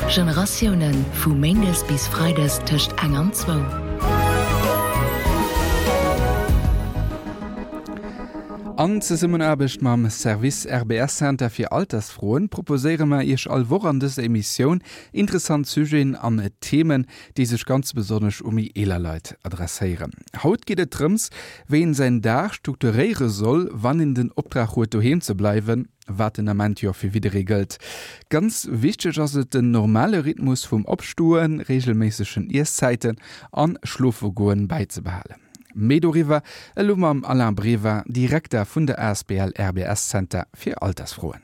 Generatiounen, vu méindes bis freides tëscht eng an zwou. An Zesummenaarbecht mam Service RBS Center fir Altersfroen proposéiere mer Iech all Woch an dëser Emissioun interessant Sujeten an Themen, déi sech ganz besonnesch u méi eeler Leit adresséieren. Haut geet et drëms, wéi een säin Dag strukturéiere soll, wann een den Optrag huet doheem ze bleiwen. Wat den Ament jo fir jidderee gëllt. Ganz wichteg ass et den normale Rhythmus vum Opstoen, reegelméissegen Ieszäiten an Schlofegoen bäizebehalen. Méi doriwwer elo mam Alain Brever, Direkter vun der asbl RBS Center fir Altersfroen.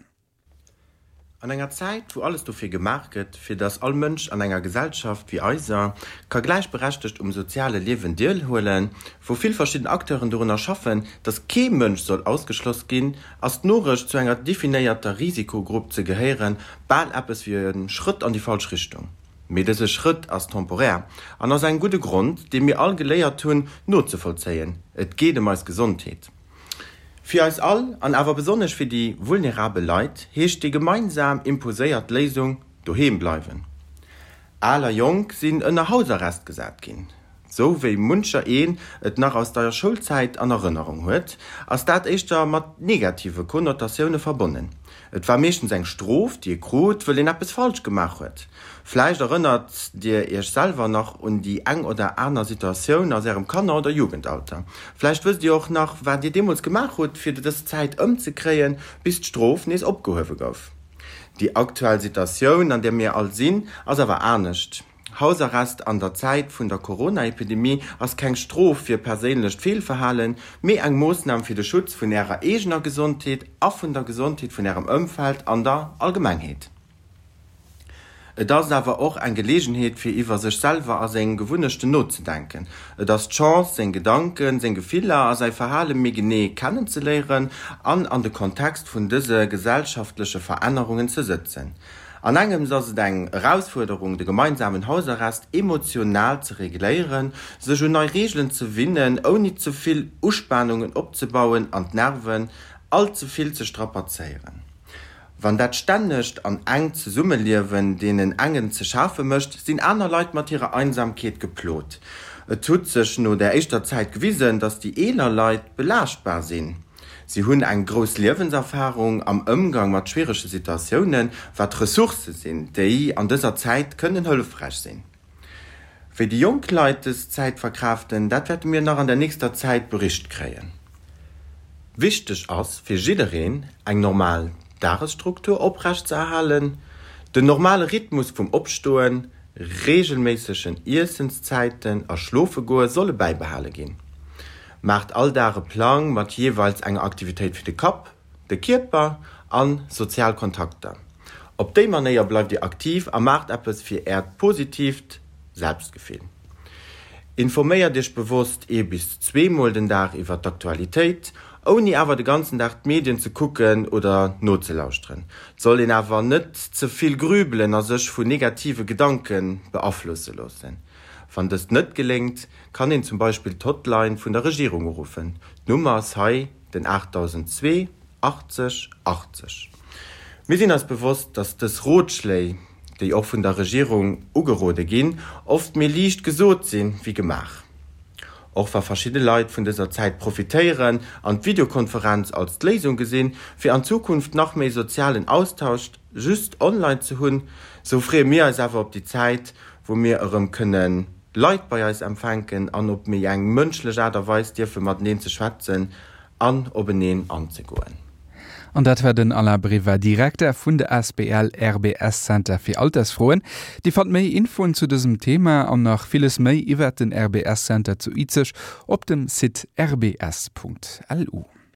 An enger Zäit, wou alles dofir gemaach gëtt, fir datt all Mënsch an enger Gesellschaft wéi eiser ka gläichberechtegt um soziale Liewen deelhuelen, wou vill verschidden Acteuren dorunner schaffen, datt kee Mënsch soll ausgeschloss ginn, ass d'Norecht, zu enger definéierter Risikogrupp ze gehéieren, bal eppes wéi e Schrëtt an déi falsch Richtung. Mee dëse Schrëtt ass temporär an ass engem gudde Grond, dee mir all geléiert hunn nozevollzéien, Et geet ëm eis Gesondheet. Fir eis all, an awer besonnesch fir déi vulnerabel Leit, heescht déi gemeinsam imposéiert Léisung, Doheem bleiwen. Al a Jonk sinn ënner Hausarrest gesat ginn. Sou wéi muncher een et nach aus deier Schoulzäit an Erënnerung huet, ass dat éischter mat negative Konnotatioune verbonnen. Et war meeschtens eng Strof, déi ee krut, wëll een eppes falsch gemaach huet. Vläicht erënnert Dir Iech selwer nach un déi eng oder aner Situatioun aus Ärem Kanner oder Jugendalter. Vläicht wësst Dir och nach, wat Dir deemools gemaach hutt, fir dës Zäit ëmzekréien, bis d'Strof nees opgehuewe gouf. Déi aktuell Situatioun, an där mir all sinn, ass awer anescht. Hausarrest an der Zäit vun der Corona-Epidemie ass keng Strof fir perséinlecht Feelverhalen, mee eng Moossnam fir de Schutz vun Ärer eegener Gesondheet a vun der Gesondheet vun Ärem Ëmfeld an der Allgemengheet. Et ass awer och eng Geleegenheet fir iwwer sech selwer a seng Gewunnechten nozedenken. Et ass d'Chance seng Gedanken, seng Gefiller a säi Verhale méi genee kennenzeléieren an an de Kontext vun dëse gesellschaftleche Verännerungen ze sëtzen. An engems ass et eng Erausfuerderung de gemeinsamen Hausarrest emotional ze regléieren, sech un nei Reegelen ze winnen, ouni ze vill Uspanungen opzebauen an d'Nerven all ze vill ze strapazéieren. Wann dat stännegt an enkt Zesummeliewen deenen engen ze schafe mécht, sinn aner Leit mat hirer Einsamkeet geplot. Et hutt sech no der éischter Zäit gewisen, datt déi eeler Leit belaaschtbar sinn. Si hunn eng grouss Liewenserfarung am Ëmgang mat schwierege Situatiounen, wat Ressourcë sinn, déi an dëser Zäit kënnen hëllefräich sinn. Wéi déi jonk Leit dës Zäit verkraaften, dat wäerte mir nach an der nächster Zäit bericht kréien. Wichteg ass fir jiddereen, eng normal Dagesstruktur oprecht ze erhalen, den normale Rhythmus vum Opstoen, reegelméissegen Iessenszäiten a Schlofegoe solle bäibehale ginn. Maacht all Dag e Plang mat jeeweils enger Aktivitéit fir de Kapp, de Kierper an sozial Kontakter. Op déi Manéier bleift Dir aktiv a maacht eppes fir Äert positiivt Selbstgefill. Informéiert Iech bewosst ee bis zweemol den Dag iwwer d'Aktualitéit, ouni awer de ganzen Dag d'Medien ze kucken oder nozelauschteren. Et soll een awer net ze vill grübelen a sech vu negative Gedanke beaflosse loossen. Wann dëst net geléngt, kann een zum Beispill d'Hotline vun der Regierung uruffen. D'Nummer ass hei. Den 8002 80 80. Mir sinn eis bewosst, dass dës Rotschléi, déi och vun der Regierung ugerode ginn, oft méi liicht gesot si wéi gemaach. Och wa verschidde Leit vun dëser Zäit profitéieren an d'Videokonferenz als d'Léisung gesinn, fir an Zukunft nach méi sozialen Austausch just online ze hunn, sou freeë mir eis awer op déi Zäit, wou mir erëm kënne Leit bei eis empfänken an op méi eng mënschlech Aart a Weis dierfe mateneen ze schwätzen an openeen anzegoen. An dat war den Alain Brever, Direkter vun der asbl RBS Center fir Altersfroen. Dir fannt méi Infoen zu dësem Thema an nach villes méi iwwert den RBS Center zu Izeg op dem Site rbs.lu.